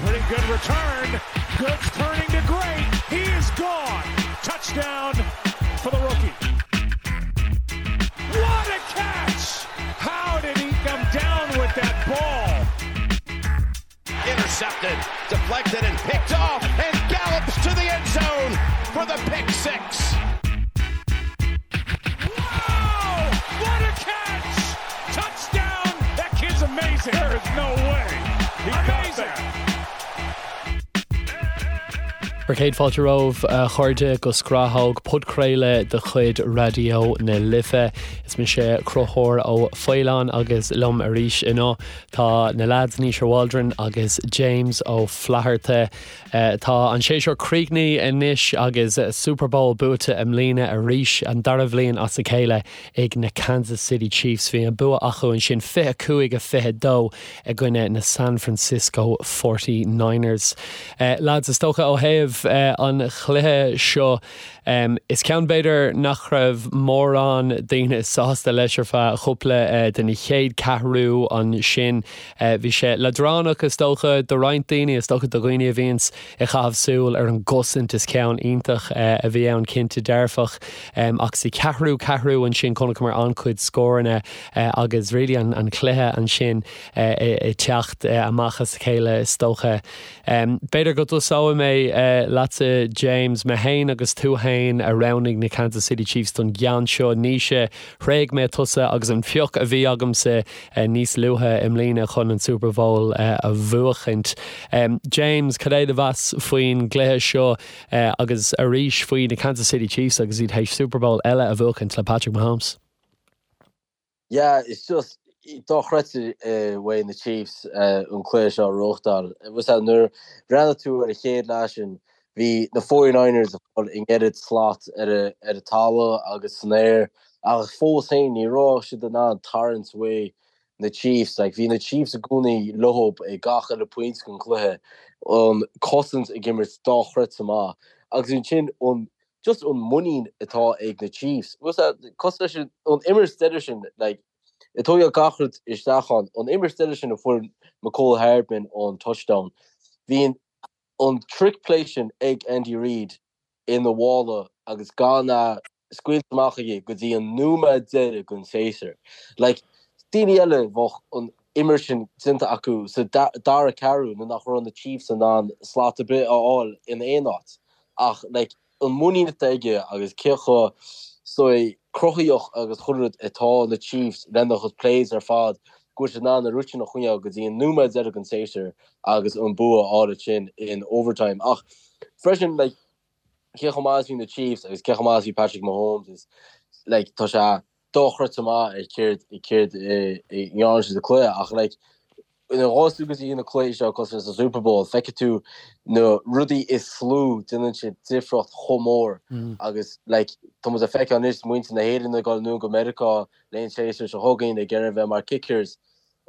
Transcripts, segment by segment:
Pretty good return. Good turning to great. He is gone. Touchdown for the rookie. What a catch! How did he come down with that ball? Intercepted, deflected, and picked off, and gallops to the end zone for the pick 6. Wow! What a catch! Touchdown! That kid's amazing. There is no way. He amazing. Bhur gcéad fáilte romhaibh, a chairde, go Scrathóg, podchraoladh de chuid Raidió na Life. Is mise Conchúr Ó Faoláin agus liom arís inniu tá na leaids Naoise Waldron agus James Ó Flatharta. Tá an séasúr críochnaithe anois agus Super Bowl buaite i mbliana arís, an dara bhliain as a chéile ag na Kansas City Chiefs. Bhí an bua acu ansin 25-22 i gcoinne na San Francisco Forty Niners. Lads, is dócha ó thaobh an chluiche seo, is ceann b'fhéidir nach raibh mórán daoine sásta leis ar feadh chúpla den chéad ceathrú ansin. Bhí sé leadránach is dócha do roinnt daoine, is dócha do dhaoine a bhíonns ag caitheamh súil ar an gcosaint. Is ceann iontach a bhí ann cinnte dearfach. Ach sa cheathrú ceathrú ansin chonaiceamar an-chuid scóranna agus really an cluiche ansin ag teacht amach as a chéile is dócha. B'fhéidir go dtosóidh mé leatsa James, mé féin agus tú féin a roghnaigh na Kansas City Chiefs don gceann seo. Naoise, thréig mé tusa agus an pioc a bhí agamsa níos luaithe i mbliana chun an Super Bowl a bhuachaint. James, cad é do mheas faoin gcluiche seo agus arís faoi na Kansas City Chiefs agus iad théis Super Bowl eile a bhuachaint le Patrick Mahomes? Yeah, it's just dochreidte uaidh na Chiefs an cluiche seo a reáchtáil. Nuair a bhreathnaigh tú ar an chéad leath sin, bhí na 49ers ag fáil an oiread slat ar an talamh agus san aer ach fós féin ní raibh siad in ann tarraingt uaidh na Chiefs. Like, bhí na Chiefs i gcónaí leo ag gach uile pointe den chluiche, an cosaint ag imirt dochreidte maith agus ansin an just an muinín atá ag na Chiefs. Cosúil leis an imirt deiridh sin, like, ag tógáil gach rud isteach ann, an imirt deiridh sin a fuair Mecole Hardman an touchdown, bhí an an trick play sin ag Andy Reid ina mhála agus gan é scaoilte amach aige go dtí an nóiméad deiridh den séasúr. Like, daoine eile bheadh an imirt sin déanta acu sa dara ceathrú nuair nach raibh na Chiefs in ann slat ar bith a fháil in aon áit. Ach like an muinín atá aige agus cé chomh sórt cruthaíoch agus chuile rud atá na Chiefs lena gcuid plays ar fad go bhfuil siad in ann an rud sin a choinneáil go dtí an nóiméad deiridh den séasúr agus an bua a fháil ansin in overtime. Ach freisin like cé chomh maith is bhí na Chiefs agus cé chomh maith is bhí Patrick Mahomes is like tá sé dochreidte maith ar céard céard a ndearna siad sa cluiche ach like nuair a ghabhas tú go dtí na cluichí seo cosúil leis an Super Bowl feicfidh tú na rudaí is lú déanann siad difríocht chomh mór agus like tá muid ag feiceáil anois muintir na hÉireann ag dul anonn go Meiriceá le an séasúr seo chugainn ag iarraidh bheith mar kickers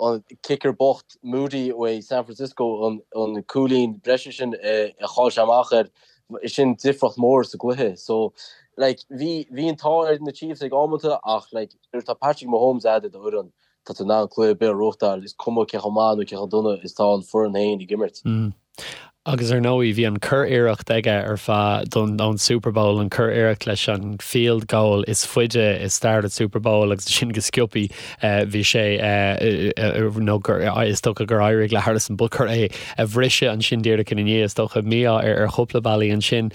an kicker bocht Moody uaidh San Francisco an an cúilín breise sin a chaill sé amach air sin difríocht mór sa gcluiche so like bhí bhí an t-ádh ar na Chiefs ag amanta ach like nuair atá Patrick Mahomes agat i do fhoireann tá tú in ann cluiche ar bith a reáchtáil, is cuma cé chomh maith nó cé chomh dona is tá an foireann féin ag imirt. Agus ar ndóigh, bhí an cur-iarracht aige ar feadh don ón Super Bowl, an cur-iarracht leis an field goal is faide i stair an Super Bowl agus sin go sciobthaí bhí sé nó gur is dócha gur éirigh le Harrison Butker é a bhriseadh ansin díreach ina ndiaidh, is dócha mí-ádh ar chúpla bealaí ansin.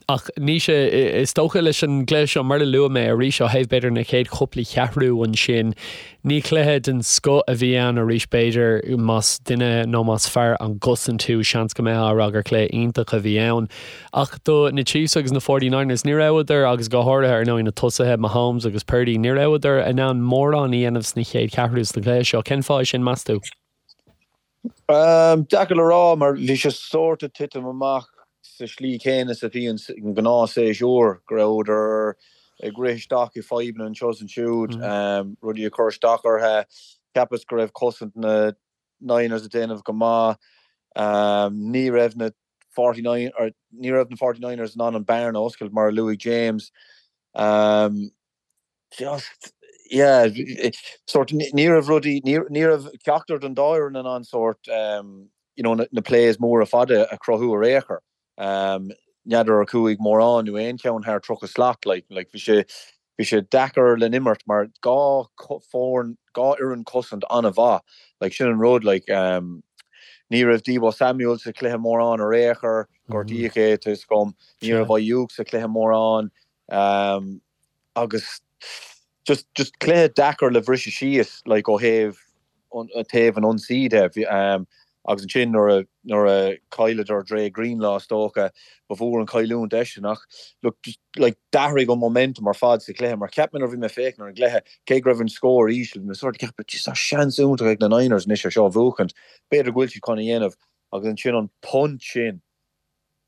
Ach Naoise, is dócha leis an gcluiche seo, mar a luaigh mé arís ó thaobh b'fhéidir na chéad chúpla cheathrú ansin, ní cluiche den scoth a bhí ann arís b'fhéidir, más duine nó más fear an gcosaint thú, seans go mbeifeá ag rá gur cluiche iontach a bhí ann. Ach do na Chiefs agus na 49ers, ní rabhadar, agus go háirithe ar ndóigh na tosaithe, Mahomes agus Purdy, ní rabhadar in ann mórán a dhéanamh sna chéad cheathrú sna cluiche seo. Cén fáth é sin, meas tú? Deacair le rá mar bhí sé sórt ag titim amach sa slí chéanna is a bhíonn sa ngnáthshéasúr, go rabhadar ag rith isteach i fadhbanna anseo is ansiúd, rudaí ag cur isteach orthu. Cheapas go raibh cosaint na Niners ag déanamh go maith. Ní raibh na 49 or ní raibh na 49ers in ann an bearna a oscailt mar a luaigh James. Just, yeah, sórt, ní raibh rudaí, ní raibh ceachtar den dá fhoireann in ann sórt. you know, na plays móra fada a chruthú ar aon chor. N'fheadar ar chuaigh mórán nó aon cheann thar 30 slat, like, like bhí sé, bhí sé deacair le n-imirt mar dhá foireann, dhá fhoireann cosaint an-mhaith, like sin an rud, like ní raibh Deebo Samuel sa chluiche mórán ar aon chor, gortaíodh é, tá 'fhios agam, ní raibh Aiyuk sa chluiche mórán, agus just, just cluiche deacair le bhriseadh síos, like ó thaobh taobh an ionsaí de. Agus ansin nuair a, nuair a chailleadar Dre Greenlaw is dócha, ba mhór an chailliúint eisean. Ach look, just like d'athraigh an momentum ar fad sa chluiche mar cheap mé nuair a bhí mé ag féachaint ar an gcluiche, cé go raibh an scór íseal, bhí mé sort of ag ceapadh, jeez tá seans iontach ag na Niners anois ar seo a bhuachaint, b'fhéidir go bhfuil siad chun a dhéanamh. Agus ansin an punt sin.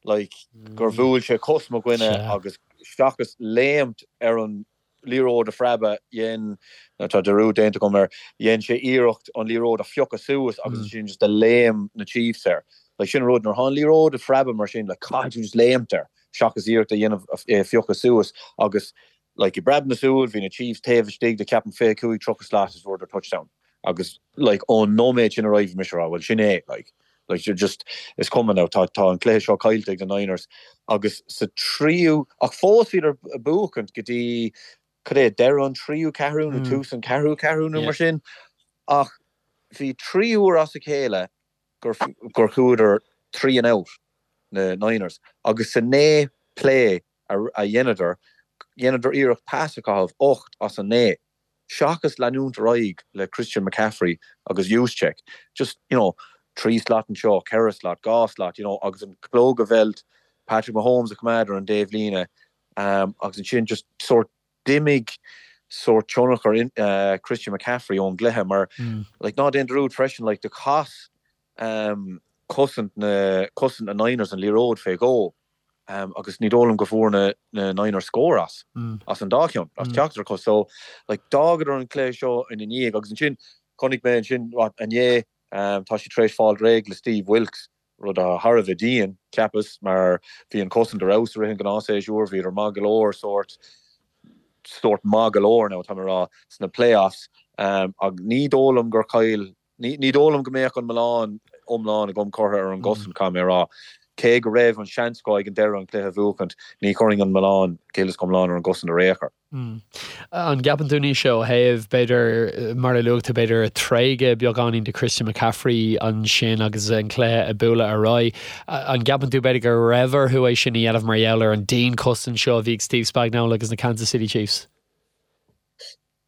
like, gur bhuail sé cos mo dhuine agus seachas léimt ar an liathróid a phreabadh, dhein, nó tá dearúd déanta agam air, dhein sé iarracht an liathróid a phiocadh suas agus ansin just do léim na Chiefs air. Like, sin an rud, nuair atá an liathróid ag preabadh mar sin, like, caithfidh tú just léimt air seachas iarracht a dhéanamh é a phiocadh suas agus, like, i bpreab na súl, bhí na Chiefs taobh istigh de, ceapaim, 25, 30 slat is fuaireadar touchdown. Agus like ón nóiméad sin ar aghaidh bhí mise ag rá bhuel sin é like like just is cuma now tá tá an cluiche seo caillte ag na Niners agus sa tríú ach fós bhíodar ag buachaint go dtí cad é deireadh an tríú ceathrú nó tús an ceathrú ceathrú nó mar sin ach bhí trí uair as a chéile gur gur chuadar three and out na Niners agus sa naoi play a a dheineadar dheineadar iarracht pas a chaitheamh ocht as an naoi. seachas leanúint ar aghaidh le Christian McCaffrey agus Juszczyk, just, you know, trí slat anseo, ceithre slat, dhá slat, you know, agus an clog a mheilt, Patrick Mahomes a choimeád ar an dtaobhlíne, agus ansin just sórt d'imigh sórt tionchar uh, Christian McCaffrey ón gcluiche mar, like, ná déan dearúd freisin, like, do chas um, cosaint na, cosaint na Niners an liathróid fé dhó. agus ní dóigh liom go bhfuair na na Niners scór as, as an dá cheann, as ceachtar acu. So, like, d'fhágadar an cluiche seo ina ndiaidh agus ansin chonaic mé ansin, what, inné, tá siad tar éis fáil réidh le Steve Wilks, rud atá thar a bheith dian, cheapas, mar bhí an chosaint ar fheabhas i rith an ghnáthshéasúir, bhíodar maith go leor, sórt, sórt maith go leor now, tá mé ag rá, sna playoffs, ach ní dóigh liom gur chaill Ní dóigh liom go mbeadh an milleán iomlán agam curtha ar an gcosaint, caithfidh mé a rá. Cé go raibh an seans acu ag an deireadh an cluiche a bhuachaint, ní chuirfinn an milleán go huile is go hiomlán ar an gcosaint ar aon chor. An gceapann tú Naoise ó thaobh, b'fhéidir, mar a luaigh tú, b'fhéidir tréigeadh beagáinín de Christian McCaffrey ansin agus an cluiche ag bualadh ar aghaidh, an gceapann tú b'fhéidir go raibh orthu é sin a dhéanamh mar gheall ar an dianchosaint seo a bhí ag Steve Spagnuolo agus na Kansas City Chiefs?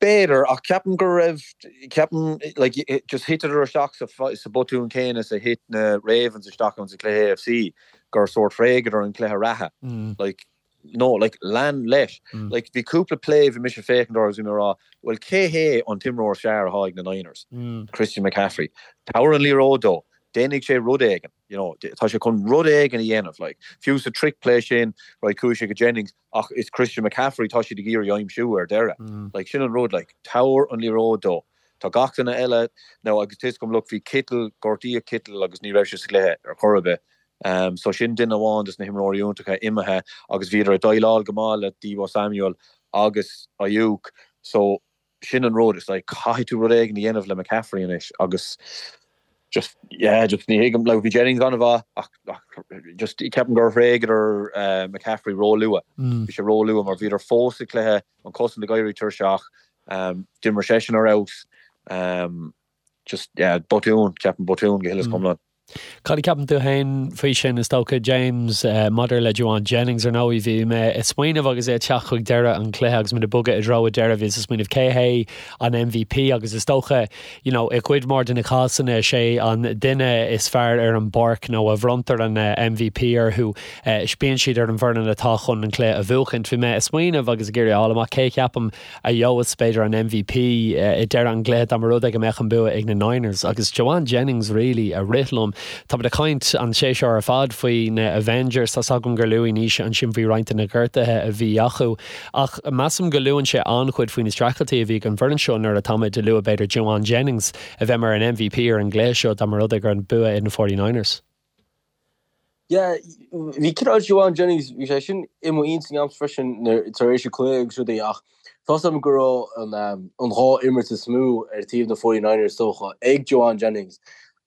B'fhéidir, ach ceapaim go raibh, ceapaim, like, just thiteadar isteach sa, sa botún céanna is a thit na Ravens isteach ann sa chluiche AFC, gur sórt thréigeadar an cluiche reatha. Like, no, like, lean leis. Like, bhí cúpla play bhí mise ag féachaint orthu agus bhí mé ag rá, bhuel, cé hé an t-imreoir is fearr atá ag na Niners? Christian McCaffrey. Tabhair an liathróid dó. Déanfaidh sé rud éigin, you know, tá sé chun rud éigin a dhéanamh, like, fiú sa trick play sin, right, chuaigh sé go Jennings, Ach is Christian McCaffrey tá siad ag iarraidh aimsiú ar deireadh. Like, sin an rud, like, tabhair an liathróid dó. Tá gach duine eile, now agus tá 'fhios agam, look, bhí Kittle, gortaíodh Kittle agus ní raibh sé sa gcluiche ar chor ar bith. Um, so sin duine amháin dos na himreoirí iontacha imithe agus bhíodar ag déileáil go maith le Deebo Samuel agus Aiyuk. So sin an rud, it's like caithfidh tú rud éigin a dhéanamh le McCaffrey anois agus just, yeah, just ní thuigim, like bhí Jennings an-mhaith ach, ach just ceapaim gur thréigeadar uh, McCaffrey ró-luath. Mm. Bhí sé ró-luath mar bhíodar fós sa chluiche, an cosaint ag éirí tuirseach, um, d'imir seisean ar fheabhas, um, Just, yeah, botún, ceapaim botún go huile is go hiomlán. Cad a cheapann tú féin faoi sin, is dócha, James, maidir le Jauan Jennings? Ar ndóigh, bhí mé ag smaoineamh agus é ag teacht chuig deireadh an chluiche agus muid ag bogadh i dtreo an deireadh, bhíos ag smaoineamh cé hé an MVP agus is dócha, you know, i gcuid mhór de na cásanna, is é an duine is fearr ar an bpáirc nó a bhronntar an MVP orthu, bíonn siad ar an bhfoireann atá chun an cluiche a bhuachaint. Bhí mé ag smaoineamh agus ag iarraidh a fháil amach cé a cheapaim a gheobhas, b'fhéidir, an MVP i deireadh an chluiche dá mba rud é go mbeadh an bua ag na Niners. Agus Jauan Jennings really a rith liom. Táimid ag caint an séasúr ar fad faoi na Avengers, tá's agam gur luaigh Naoise ansin faoi roinnt de na gortuithe a bhí acu. Ach measaim go luann sé an-chuid faoi na streachailtí a bhí ag an bhfoireann seo nuair atáimid ag lua b'fhéidir Jauan Jennings a bheith mar an MVP ar an gcluiche seo dá mba rud é go raibh an bua ag na 49ers. Yeah, bhí cineál Jauan Jennings, bhí sé sin i mo intinn agamsa freisin tar éis an cluiche agus rudaí ach tá's agam go raibh an an dhá imirt is mó ar taobh na 49ers is dócha ag Jauan Jennings.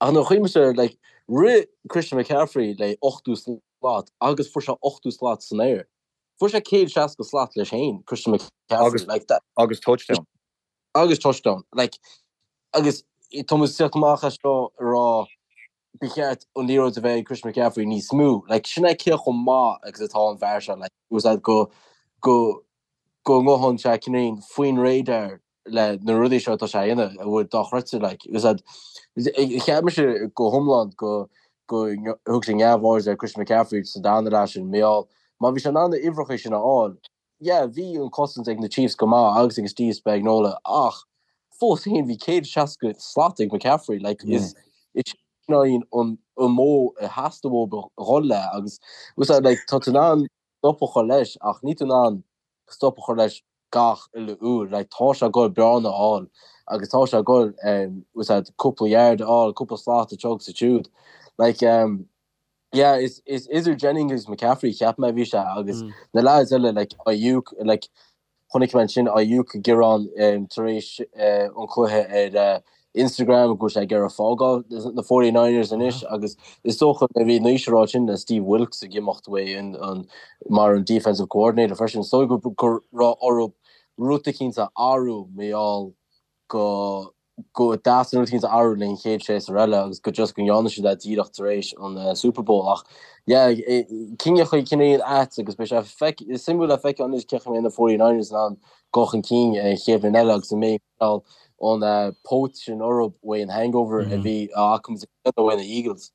Ach nuair a chuimhnímse air, like, Rith Christian McCaffrey le 80 slat agus fuair sé 80 slat san aer. Fuair sé 160 slat leis féin, Christian McCaffrey. Like that. Agus touchdown. Agus touchdown. Like, agus tá muid ag teacht amach as seo ag rá ba cheart an liathróid a bheith ag Christian McCaffrey níos mó. Like, sin é cé chomh maith agus atá an fear seo. Like, was that go go go ngabhann sé cineál faoin radar le na rudaí seo atá sé a dhéanamh a bhfuil dochreidte like was that cheap mise go hiomlán go go thug sé neamhaird ar Christian McCaffrey sa darna leath sin mar gheall má bhí sé in ann na uimhreacha sin a fháil yeah bhí an cosaint ag na Chiefs go maith agus ag Steve Spagnuolo ach fós féin bhí 160 slat ag McCaffrey like is is sin an an modh a theastaigh uathu a dhul le agus was that like tá tú in ann stop a chur leis ach níl tú in ann stop a chur leis gach uile uair. Like tá sé ag goil bearna a fháil agus tá sé ag goil um was that cúpla yard a fháil, cúpla slat anseo agus ansiúd. Like um yeah is is idir Jennings agus McCaffrey cheap mé a bhí sé agus na lads eile like Aiyuk like chonaic mé ansin Aiyuk ag gearán um tar éis uh an cluiche ar uh Instagram go bhfuil sé ag iarraidh fágáil na 49ers anois agus is dócha nuair a bhí Naoise ag rá sin le Steve Wilks ag imeacht uaidh an, an, mar an defensive coordinator freisin. Is dóigh go, go raibh orthu rud eicínt a athrú mar gheall go go dteastaigh rud eicínt a athrú le an chéad séasúr eile agus go just go ndearna siad é díreach tar éis an uh, Super Bowl ach yeah, cinneadh cineál ait agus beidh sé feic, suimiúil le feiceáil anois cén chaoi a mbeidh na 49ers in ann dul chun cinn an chéad bhliain eile agus an mbeidh an póit sin orthu uaidh an hangover a bhí acu uaidh na Eagles.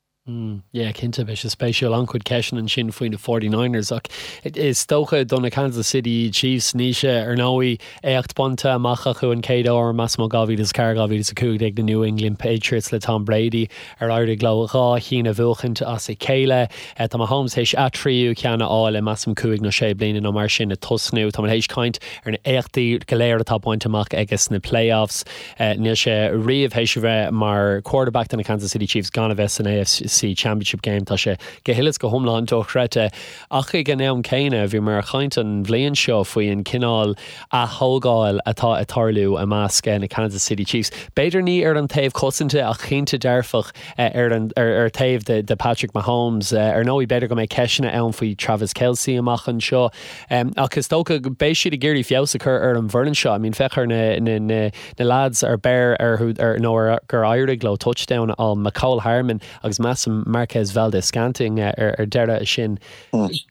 Yeah, cinnte, beidh sé spéisiúil. An-chuid ceisteanna ansin faoi na 49ers ach is dócha do na Kansas City Chiefs, Naoise, ar ndóigh, éacht bainte amach acu an chéad uair, measaim ó 2004, 2015 na New England Patriots le Tom Brady ar éirigh leo dhá chinn a bhuachaint as a chéile. Tá Mahomes théis a thríú ceann a fháil i measaim cúig nó sé bliana nó mar sin ag tosnú. Tá muid théis caint ar na éachtaí go léir atá bainte amach aige sna playoffs. Níl sé riamh théis a bheith mar quarterback do na Kansas City Chiefs gan a bheith san AFC Championship Game. Tá sé go huile is go hiomlán dochreidte. Ach ag an am céanna, bhíomar ag caint an bhliain seo faoi an cineál ath-thógáil atá ag tarlú i measc na Kansas City Chiefs. B'fhéidir ní ar an taobh cosanta ach cinnte dearfach ar an ar taobh de Patrick Mahomes. Ar ndóigh, b'fhéidir go mbeidh ceisteanna ann faoi Travis Kelce amach anseo. Ach is dócha go beidh siad ag iarraidh feabhas a chur ar an bhfoireann seo. I mean, féach ar na na na na lads ar beir orthu ar nó ar gur éirigh leo touchdown a fháil, Mecole Hardman agus measaim Marquez Valdes-Scantling ar ar deireadh sin.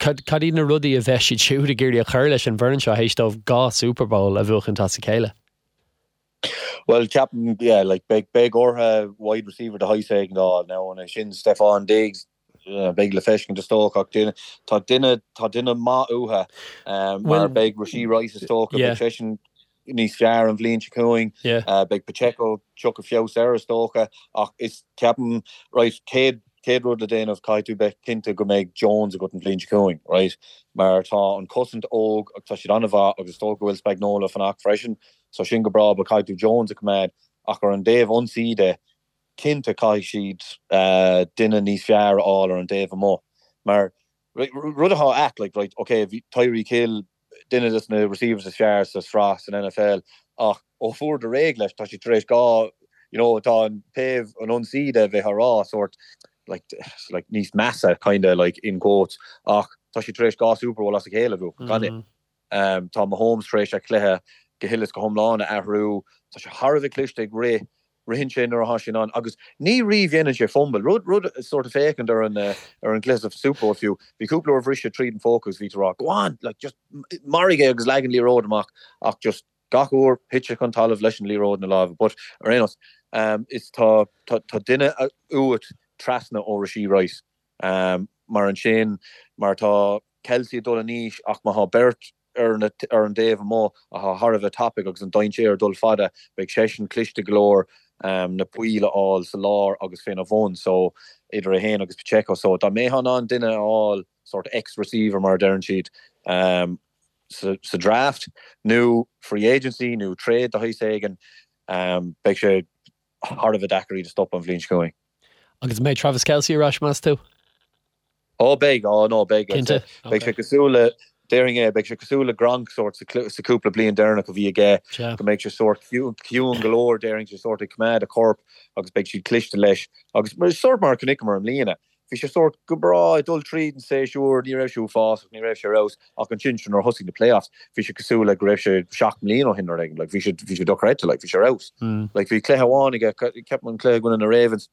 Cad cad iad na rudaí a bheidh siad siúd ag iarraidh a chur leis an bhfoireann seo théis dóibh dhá Super Bowl a bhuachaint as a chéile? Bhuel, ceapaim, yeah, like, beidh beidh orthu wide receiver de shaghas éigin a fháil. Now, an é sin Stefon Diggs, Beidh le feiscint is dócha ach tá duine tá duine maith uathu mar beidh Rashee Rice is dócha, beidh seisean níos fearr an bhliain seo chugainn, beidh Pacheco tiocfaidh feabhas air is dócha ach is ceapaim right céad céad rud le déanamh caithfidh tú beith cinnte go mbeidh Jones agat an bhliain seo chugainn right mar tá an cosaint óg agus tá siad an-mhaith agus is dócha go bhfuil Spagnuolo fanacht freisin so sin go breá but caithfidh tú Jones a choimeád ach ar an dtaobh ionsaí de cinnte caithfidh siad duine níos fearr a fháil ar an dtaobh amuigh mar rud atá ait like right ok bhí Tyreek Hill duine des na receivers is fearr sa sraith san NFL ach ó fuaireadar réidh leis tá siad tar éis dhá you know tá an taobh an ionsaí de bheith á rá sort like like níos measa kinda like in quotes ach tá siad tar éis dhá Super Bowl as a chéile a bhuachan gan é. Tá Mahomes tar éis a chluiche go huile is go hiomlán a athrú. Tá sé thar a bheith cliste ag rith. Ritheann sé nuair atá sé in ann agus ní riamh dhéanann sé fumble. Rud, rud sort of féachaint ar an, ar an gcluiche sa Super Bowl fiú, bhí cúpla uair bhris sé tríd an phóca agus bhí tú ag rá, go on, like just maraigh é agus leag an liathróid amach ach just gach uair thit sé chun talaimh leis an liathróid ina lámha. But ar aon nós, is tá, tá, tá duine uait trasna ó Rashee Rice. Mar ansin, mar tá Kelce ag dul in aois ach má thá beirt ar na ar an dtaobh amuigh athá thar a bheith tapaidh agus an dainséar ag dul fada, beidh seisean cliste go leor na poill a fháil sa lár agus féna bhun so idir é fhéin agus Pacheco. So dá mbeifeá in ann duine a fháil sort X receiver mar a deireann siad sa sa draft nó free agency nó trade de shaghas éigin beidh sé thar a bheith deacair iad a stopadh an bhliain seo chugainn. Agus an mbeidh Travis Kelce ar ais, meas tú? Ó beidh, ó no beidh. Cinnte? Beidh sé cosúil le, Déarfainn é, beidh sé cosúil le Gronk sórt sa cúpla bliain deireanach a bhí aige, go mbeidh sé sórt ciúin go leor, déarfainn sé sórt ag coimeád a chorp agus beidh siad cliste leis agus sórt mar a chonaiceamar i mbliana, bhí sé sórt go breá ag dul tríd an séasúr, ní raibh sé uafásach, ní raibh sé ar fheabhas ach ansin nuair a thosaigh na playoffs, bhí sé cosúil le go raibh sé 7 mbliana ó shin nó rud éigin, like bhí sé bhí sé dochreidte, like bhí sé ar fheabhas. Like bhí cluiche amháin aige, ceapaim an cluiche i gcoinne na Ravens,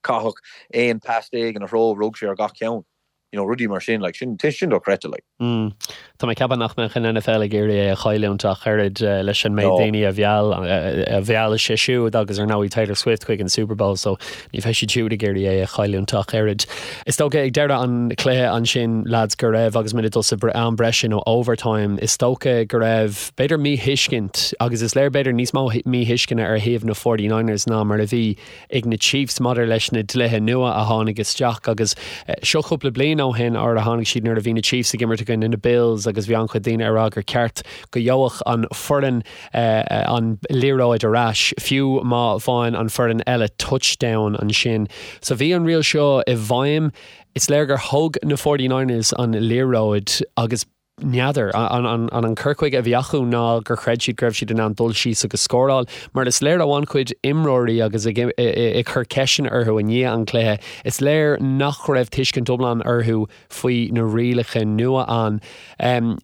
Caitheadh 11 pas ina threo, rug sé ar gach ceann. You know, rudaí mar sin, like, sin, sin dochreidte, like. Mm. Tá mé ag ceapadh nach mbeadh an NFL ag iarraidh é a chailliúint ach oiread leis an méid daoine a mheall, a mheall sé siúd agus ar ndóigh Taylor Swift chuig an Super Bowl so ní bheidh siad siúd ag iarraidh é a chailliúint ach oiread. Is dócha ag deireadh an chluiche ansin, lads, go raibh, agus muid ag dul sa am breise nó overtime, is dócha go raibh b'fhéidir míthuiscint agus is léir b'fhéidir níos mó míthuisceana ar thaobh na 49ers ná mar a bhí ag na Chiefs maidir leis na dlíthe nua a tháinig isteach agus seo cúpla bliain ó shin nuair a tháinig siad nuair a bhí na Chiefs ag imirt i gcoinne na Bills agus bhí an-chuid daoine ag rá gur ceart go gheobhadh an foireann an liathróid ar ais fiú má bhain an foireann eile touchdown ansin. So bhí an riail seo i bhfeidhm. Is léir gur thóg na 49ers an liathróid agus N'fheadar. An an cur chuige a bhí acu ná gur chreid siad go raibh siad in ann dul síos agus scóráil? Mar is léir ó an-chuid imreoirí agus ag ag cur ceisteanna orthu i ndiaidh an chluiche, is léir nach raibh tuiscint iomlán orthu faoi na rialacha nua ann.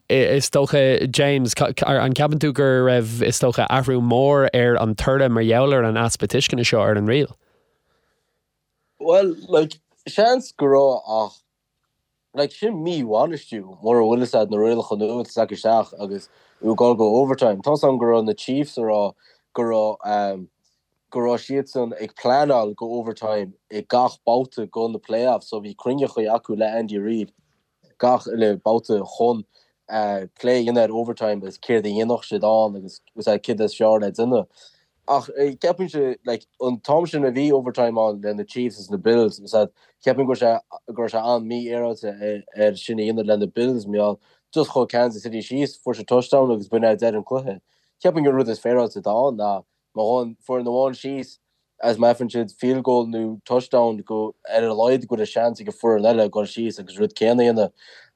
Is dócha, James, an gceapann tú go raibh, is dócha, athrú mór ar an toradh mar gheall ar an easpa tuisceana seo ar an riail? Bhuel, like, seans go raibh ach Like, sin mí-bhainistiú, mura bhfuil fhios a'd na rialacha nua atá tagtha isteach agus tú ag dul go overtime. Tá's a'm go raibh na Chiefs a rá go raibh ehm go raibh siadsan ag pleanáil go overtime i gach babhta go na playoffs so bhí cruinneachaí acu le Andy Reid gach uile babhta chun eh plé a dhéanamh ar overtime agus céard a dhéanfadh siad ann agus céard is fearr le déanamh. Ach ceapaimse, like, an t-am sin a bhí overtime ann le na Chiefs is na Bills, is ea, ceapaim go raibh sé, go raibh sé an-mhífhéaráilte air sin a dhéanamh le na Bills, mar gheall, just chuaigh Kansas City síos, fuair siad touchdown agus b'in é deireadh an cluiche. Ceapaim gur rud is féaráilte atá ann ná má ghabhann foireann amháin síos agus má fhaigheann siad field goal nó touchdown go, ar a laghad go bhfuil seans ag an foireann eile dul síos agus rud céanna a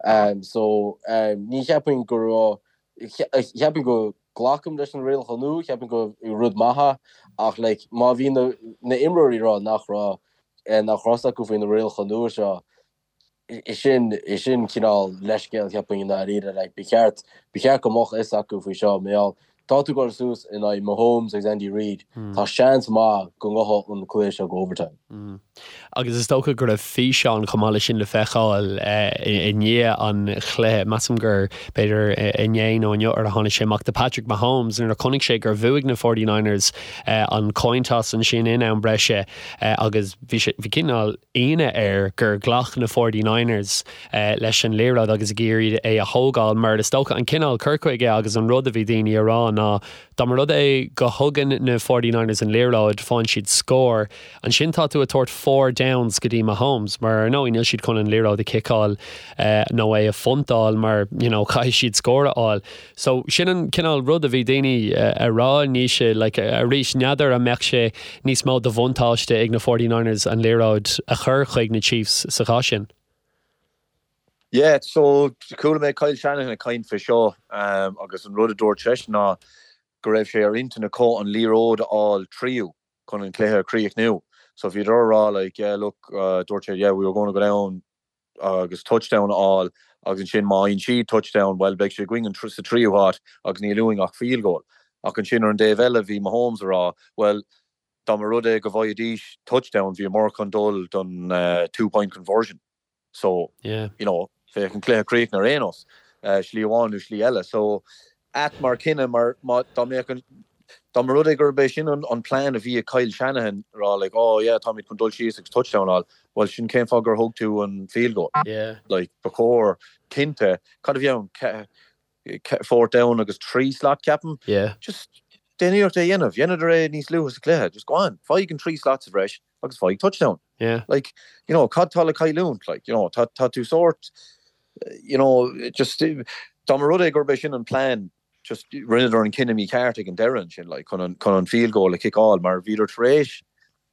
dhéanamh. So, ní cheapaim go raibh, Cheapfainn go glacaim leis na rialacha nua, cheapfainn go rud maith é, ach like má bhí na na imreoirí ag rá nach raibh nach raibh fhios acu faoi na rialacha nua seo, sin sin cineál leithscéal cheapfainn i ndáiríre, like ba cheart ba cheart go mbeadh fhios acu faoi seo, mar gheall tá tú ag dul suas in aghaidh Mahomes agus Andy Reid, tá seans maith go ngabhfaidh an cluiche seo go overtime. Agus is dócha go raibh físeán chomh maith leis sin le feiceáil i ndiaidh an chluiche, measaim gur b'fhéidir inné nó inniu ar a tháinig sé amach, de Patrick Mahomes nuair a chonaic sé gur bhuaigh na 49ers an coin toss ansin in am breise agus bhí sé, bhí cineál ionadh air gur ghlac na 49ers leis an liathróid agus ag iarraidh é a thógáil mar is dócha an cineál cur chuige agus an rud a bhí daoine a rá ná dá mba rud é go thugann na 49ers an liathróid, faigheann siad scór. Ansin tá tú ag tabhairt four downs go dtí Mahomes mar ar ndóigh níl siad chun an liathróid a chiceáil nó é a phuntáil mar you know caithfidh siad scór a fháil. So sin an cineál rud a bhí daoine a rá Naoise like arís n'fheadar an mbeadh sé níos mó de bhuntáiste ag na 49ers an liathróid a chur chuig na Chiefs sa chás sin. Yeah, so chuala mé Kyle Shanahan ag caint fé seo agus an rud a dúirt seisean ná go raibh sé ar intinn acu an liathróid a fháil tríú. chun an cluiche a chríochnú. So bhíodar a rá like yeah look dúirt sé yeah we were going to go down agus touchdown a fháil agus ansin má fhaigheann siad touchdown well beidh sé againn sa tríú háit agus níl uainn ach field goal. Ach ansin ar an dtaobh eile bhí Mahomes a rá well dá mba rud é go bhfaighidís touchdown bhíomar chun dul don two point conversion. So, you know, bheadh an cluiche críochnaithe ar aon nós, slí amháin nó slí eile. So, ait mar cinneadh mar má, dá mbeadh an, dá mba rud é gurb é sin an, an plean a bhí ag Kyle Shanahan, a rá like, oh yeah, táimid chun dul síos agus touchdown a fháil, bhuel sin cén fáth gur thug tú an field goal? Yeah. Like, ba chóir, cinnte, cad a bhí ann, fourth down agus 3 slot ceapaim. Yeah. Just déan iarracht é a dhéanamh. Dheineadar é níos luaithe sa chluiche. Just go on, faigh an 3 slot sa bhreis agus faigh touchdown. Yeah. Like, you know, cad tá le cailliúint? Like, you know, tá, tá tú sórt, you know, just, dá mba rud é gurb é sin an plean, just rinneadar an cinneadh mícheart ag an deireadh ansin, like, chun an, chun an field goal a chiceáil mar bhíodar tar éis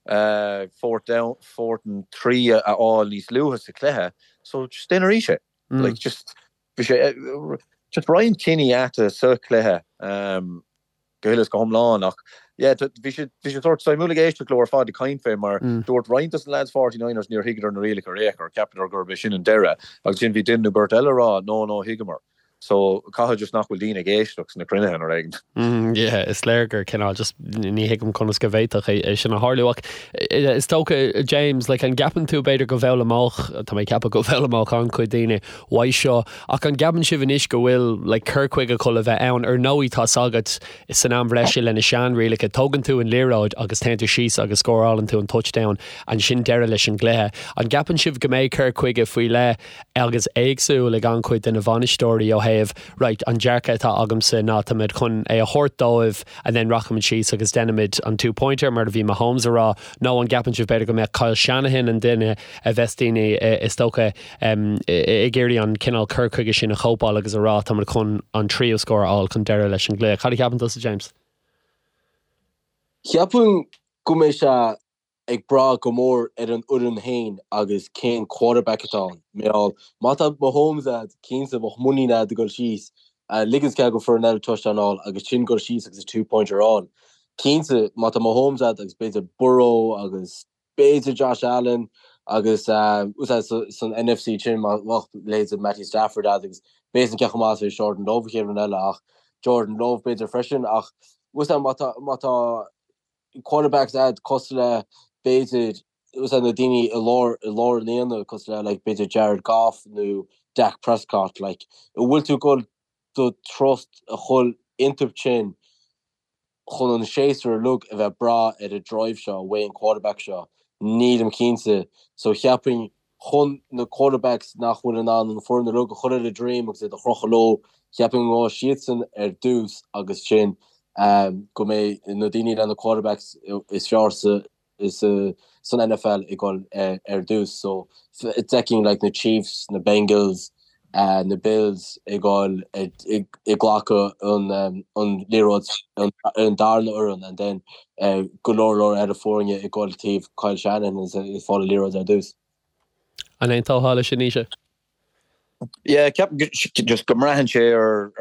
uh, fourth down, fourth and 3 a fháil níos luaithe sa chluiche, so just déan arís é. Like, just. Bhí sé just roinnt cinní aite sa chluiche go huile is go hiomlán ach yeah bhí sé bhí sé sórt suimiúil ag éisteacht leo ar fad ag caint fé mar dúirt roinnt dos na lads 49ers níor thuigeadar na rialacha ar aon chor, cheapadar gurb é sin an deireadh agus ansin bhí duine nó beirt eile ag rá no no thuigeamar. So caithfidh just nach bhfuil daoine ag éisteacht sna cruinnithe nó rud éigin. Yeah, is léir gur cineál just ní thuigim conas go bhféadfadh é sin a tharlú ach is dócha James, like an gceapann tú b'fhéidir go bhfoghlaimeodh, tá mé ag ceapadh go bhfoghlaimeodh an-chuid daoine uaidh seo ach an gceapann sibh anois go bhfuil like cur chuige chun a bheith ann? Ar ndóigh tá's agat san am bhreise le na sean-rialacha tógann tú an liathróid agus téann tú síos agus scórálann tú an touchdown ansin deireadh leis an gcluiche. An gceapann sibh go mbeidh cur chuige faoi leith agus éagsúil ag an-chuid de na bhainisteoirí ó thaobh, right, an dearcadh atá agamsa ná táimid chun é a thabhairt dóibh and then rachaimid síos agus déanfaimid an two pointer mar a bhí Mahomes a rá, nó an gceapann sibh b'fhéidir go mbeadh Kyle Shanahan an duine a bheas daoine is dócha ag iarraidh an cineál cur chuige sin a chóipeáil agus a rá táimid chun an tríú scór a fháil chun deireadh leis an gcluiche. Cad a cheapann tusa James? Cheapfainn go mbeidh sé ag brath go mór ar an fhoireann féin agus cén quarterback atá ann. Mar gheall, má tá Mahomes a'd, cinnte bheadh muinín a'd a dhul síos, ligint cead go foireann eile touchdown a fháil agus sin dhul síos agus a two pointer a fháil. Cinnte, má tá Mahomes a'd agus b'fhéidir Burrow agus b'fhéidir Josh Allen agus san NFC sin má bheadh leithéid Matthew Stafford a'd agus b'fhéidir cé chomh maith is a bheidh Jordan Love an chéad rud eile ach Jordan Love b'fhéidir freisin ach má tá má tá quarterbacks a'd cosúil le b'fhéidir na daoine i lár i lár an aonaigh cosúil le like b'fhéidir Jared Goff nó Dak Prescott like an bhfuil tú ag dul do trust a chur iontu sin chun an séasúr uilig a bheith breá ar an drive seo uaidh an quarterback seo nílim cinnte so cheapfainn chun na quarterbacks nach bhfuil in ann an foireann uilig a chur ar a droim agus iad a chrochadh leo, cheapfainn go ngabhfaidh siadsan ar dtús agus sin go mbeidh na daoine le na quarterbacks is fearr san NFL ag dul ar dtús. So d'fheicfinn like na Chiefs, na Bengals, na Bills ag dul ag glacadh an liathróid an darna fhoireann and then go leor leor eile foirne ag dul taobh Kyle Shanahan is ag fáil an liathróid ar dtús. An aontófá leis sin, Naoise? Yeah, ceapaim just go mbraitheann sé ar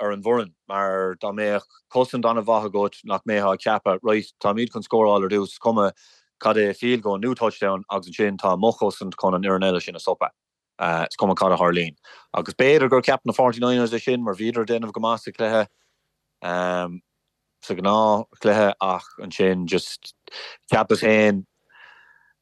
ar an bhfoireann mar dá mbeadh cosaint an-mhaith agat nach mbeifeá ag ceapadh right táimid chun scóráil ar dtús is cuma cad é field goal nó touchdown agus ansin tá mo chosaint chun an fhoireann eile sin a stopadh. Is cuma cad a tharlaíonn. Agus b'fhéidir gur cheap na Forty Niners é sin mar bhíodar ag déanamh go maith sa chluiche, sa ghnáthchluiche ach ansin just cheapas féin,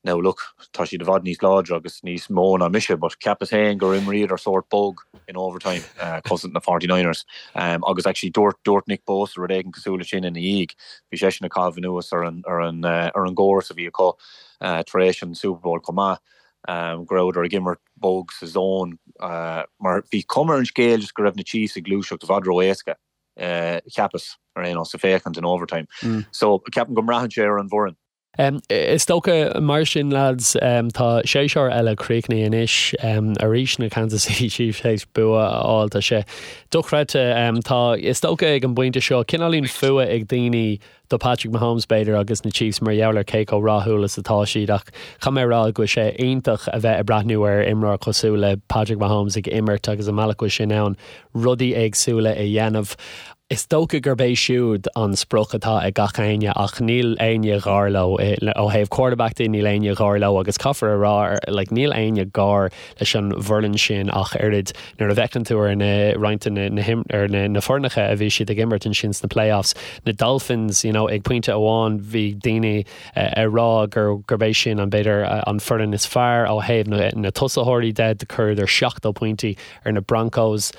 now look, tá siad i bhfad níos láidre agus níos mó ná mise but cheapas féin gur imríodar sórt bog in overtime, cosaint na Forty Niners. Agus actually dúirt, dúirt Nick Bosa rud éigin cosúil leis sin ina dhiaidh. Bhí seisean ag caitheamh anuas ar an, ar an, ar an gcóras a bhí acu tar éis an Super Bowl chomh maith. go rabhadar ag imirt bog sa zone mar bhí cuma ar an scéal just go raibh na Chiefs ag gluaiseacht i bhfad ró-éasca, cheapas, ar aon nós, sa féachaint in overtime. So, ceapaim go mbraitheann sé ar an bhfoireann. Is dócha, mar sin, lads, tá séasúr eile críochnaithe anois. Arís na Kansas City Chiefs théis bua a fháil. Tá sé dochreidte. Tá, is dócha ag an bpointe seo, cineáilín fuath ag daoine do Patrick Mahomes, b'fhéidir, agus na Chiefs mar gheall ar cé chomh rathúil is atá siad ach caithfidh mé a rá go bhfuil sé iontach a bheith ag breathnú ar imreoir cosúil le Patrick Mahomes ag imirt agus an mbealach go bhfuil sé in ann rudaí éagsúla a dhéanamh. Is dócha gurb é siúd an sprioc atá ag gach éinne ach níl éinne gar leo. Ó thaobh quarterback de, níl éinne gar leo agus caithfear a rá like níl éinne gar leis an bhfoireann sin ach oiread. Nuair a bhfeiceann tú ar na roinnt de na ar na foirneacha a bhí siad ag imirt ansin sna playoffs, na Dolphins, you know, ag pointe amháin bhí daoine ag rá gur gurb é sin an b'fhéidir an foireann is fearr ó thaobh na na tosaitheoirí de, do chuireadar 70 pointí ar na Broncos,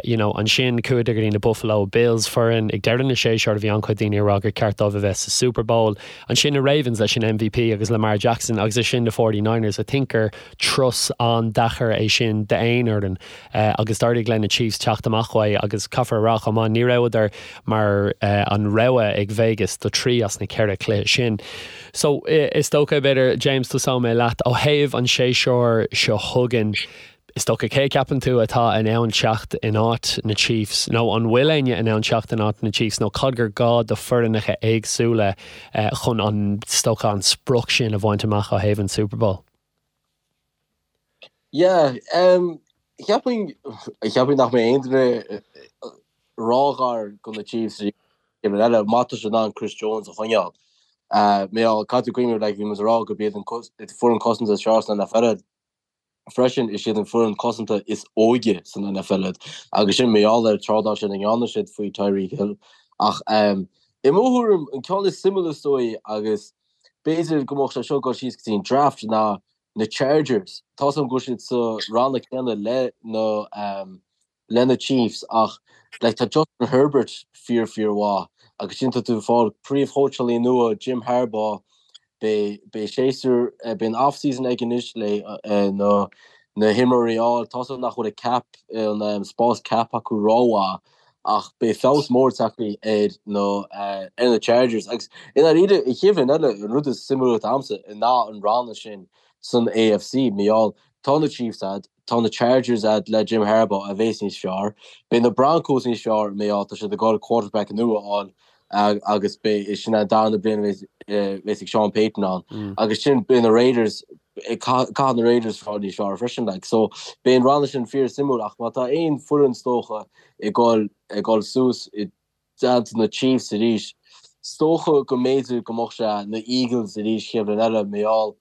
you know, ansin chuadar go dtí na Buffalo Bills, foireann ag deireadh na séasúr a bhí an-chuid daoine ag rá gur ceart dóibh a bheith sa Super Bowl. Ansin na Ravens leis an MVP agus Lamar Jackson agus ansin na 49ers, I think gur Turas an-deacair é sin d'aon fhoireann agus d'éirigh le na Chiefs teacht amach uaidh agus caithfear a rá chomh maith, ní rabhadar mar an rogha ag Vegas do thrí as na ceithre chluiche sin. So, is dócha, b'fhéidir, James, tosóidh mé leat, ó thaobh an séasúr seo chugainn, is dócha, cé a cheapann tú atá in ann teacht in áit na Chiefs nó an bhfuil éinne in ann teacht in áit na Chiefs nó cad gur gá do foireannacha éagsúla chun an, is dócha, an sprioc sin a bhaint amach ó thaobh an Super Bowl? Yeah, um, Cheapfainn, cheapfainn nach mbeidh aon duine róghar do na Chiefs an chéad bhliain eile má tá siad in ann Chris Jones a choinneáil. Mar caithfidh tú cuimhneamh like bhí muid ag rá gurb iad an foireann cosanta is fearr san NFL freisin is iad an foireann cosanta is óige san NFL iad agus sin mar gheall ar trádáil sin a ndearna siad faoi Tyreek Hill ach i mo thuairim an ceann is suimiúla is dóigh agus b'fhéidir go mbeadh sé seo ag dul síos go dtí an draft ná na Chargers. Tá's agam go bhfuil siad sa ranna céanna le na le na Chiefs ach like tá Justin Herbert fíor fíor mhaith agus sin tá tú ag fáil príomhchóitseálaí nua Jim Harbaugh beidh beidh séasúr beidh an off season aige anois le na na himreoirí a fháil. Tá's agam nach bhfuil an cap an spás cap acu rómhaith ach beidh feabhas mór tagtha ar na ar na Chargers agus i ndáiríre an chéad bhliain eile an rud is suimiúla domsa ná an ranna sin san AFC mar gheall tá na Chiefs a'd, tá na Chargers a'd le Jim Harbaugh a bheas níos fearr, beidh na Broncos níos fearr mar gheall tá siad ag dul quarterback nua a fháil agus beidh sin an darna bliain a bheas ag Sean Payton ann agus sin beidh na Raiders caithfidh na Raiders fáil níos fearr freisin like so beidh an ranna sin fíor suimiúil ach má tá aon foireann is dócha ag dul ag dul suas i dteannta na Chiefs arís is dócha go mb'fhéidir go mbeadh sé na Eagles arís chéad bhliain eile mar gheall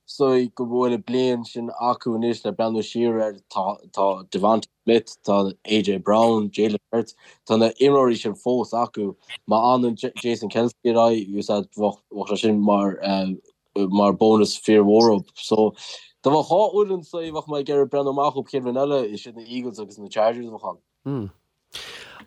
is dóigh go bhfuil an bliain sin acu anois le breathnú siar air tá tá DeVonta Smith tá AJ Brown Jalen Hurts tá na imreoirí sin fós acu má fhanann Jason Kelce ar aghaidh bheadh bheadh sé sin mar mar bónas fíormhór dóibh. So, dá mbeadh dhá fhoireann sa bheadh mé ag iarraidh breathnú amach dóibh chéad bhliain eile, is iad na Eagles agus na Chargers a bheadh ann. Mm.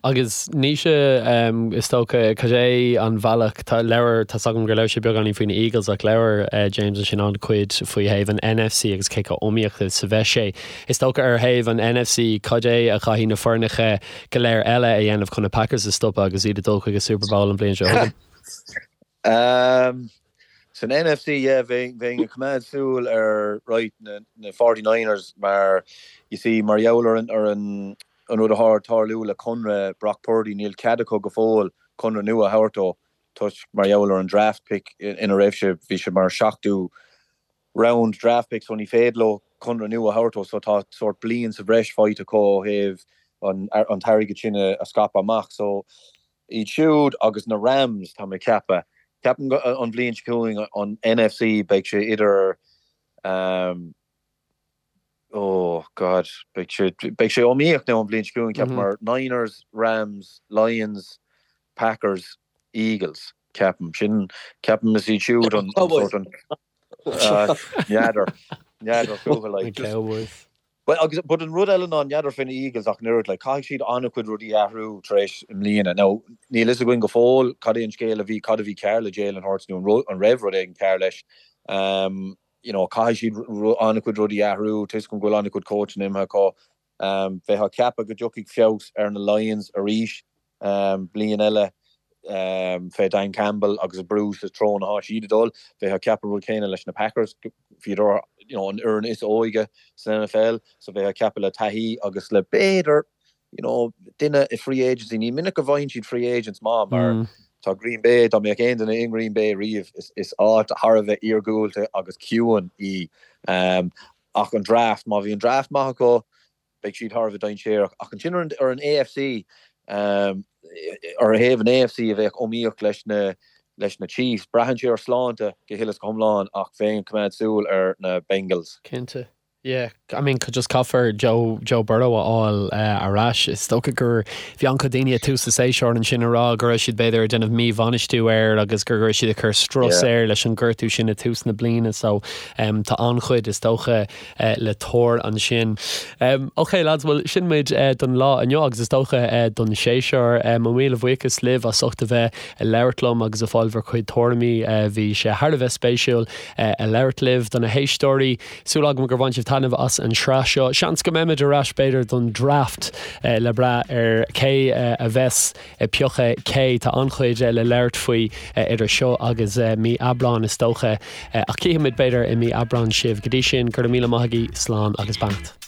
Agus Naoise, is dócha, cad é an bhealach, tá labhair, tá's agam gur labhair sé beagáinín faoi na Eagles ach labhair James ansin an-chuid faoi thaobh an NFC agus cé chomh iomaíoch is a bheas sé. Is dócha ar thaobh an NFC, cad é a chaithfidh na foirneacha go léir eile a dhéanamh chun na Packers a stopadh agus iad ag dul chuig an Super Bowl an bhliain seo chugainn? San NFC, yeah, bheinn ag coimeád súil ar, right, na 49ers mar, you see, mar gheall ar an, ar an, an rud atá ag tarlú le conradh Brock Purdy, níl cead acu go fóill conradh nua a thabhairt dó toisc mar gheall ar an draft pick ina raibh sé, bhí sé mar seachtú round draft pick so ní féidir leo conradh nua a thabhairt dó so tá sórt bliain sa bhreis faighte acu ó thaobh an, an t-airgead sin a scaipeadh amach so Iad siúd agus na Rams, tá mé ag ceapadh. Ceapaim go an bhliain seo chugainn an NFC beidh sé idir oh God beidh sé beidh sé iomaíoch now an bhliain seo chugainn ceapaim mar Niners, Rams, Lions, Packers, Eagles ceapaim. Sin ceapaim is iad siúd an sórt an n'fheadar n'fheadar fúthu like just Cowboys. Bhuel, agus, but an rud eile ná, n'fheadar faoi na Eagles ach an oiread, like, caithfidh siad an-chuid rudaí a athrú tar éis i mbliana. Now, níl fhios againn go fóill cad é an scéal a bhí, cad a bhí cearr le Jalen Hurts nó an rud, an raibh rud éigin cearr leis. Um, you know, caithfidh siad an-chuid rudaí a athrú, tá fhios agam go bhfuil an-chuid coachanna imithe acu. Um, bheifeá ag ceapadh go dtiocfaidh feabhas ar na Lions arís. Bliain eile fé Dan Campbell agus ag brú sa treo atá siad ag dul. Bheifeá ag ceapadh an rud céanna leis na Packers. Bhíodar you know an fhoireann is óige san NFL so bheifeá ag ceapadh le taithí agus le b'fhéidir you know duine i free agency. Ní minic go bhfaigheann siad free agents maith mar tá Green Bay, dá mbeadh aon duine i nGreen Bay riamh is áit thar a bheith iargúlta agus ciúin í. Ach an draft, má bhí an draft maith acu, beidh siad thar a bheith dainséarach. Ach ansin ar an ar an AFC, ar thaobh an AFC a bheadh iomaíoch leis na leis na Chiefs, braitheann sé ar shláinte go huile is go hiomlán ach bheinn ag coimeád súil ar na Bengals. Cinnte. Yeah, I mean just caithfear Joe Joe Burrow a fháil ar ais. Is dócha gur bhí an-chuid daoine ag tús an tséasúir ansin ag rá go raibh siad b'fhéidir ag déanamh míbhainistiú air agus go raibh siad ag cur strus air leis an gortú sin ag tús na bliana so tá an-chuid is dócha le tuar ansin. Ok lads, bhuel sin muid don lá inniu agus is dócha don séasúr. Mo mhíle bhuíochas libh as ucht a bheith ag labhairt liom agus ag fáil bhur chuid tuairimí. Bhí sé thar a bheith spéisiúil ag labhairt libh. Do na héisteoirí, súil agam gur bhain sibh taitneamh as an sraith seo. Seans go mbeimid ar ais b'fhéidir don draft le brath ar cé a bheas ag piocadh cé. Tá an-chuid le labhairt faoi idir seo agus mí Aibreáin is dócha. Ach cífimid b'fhéidir i mí Aibreáin sibh. Go dtí sin, go raibh míle maith agaibh, slán agus beannacht.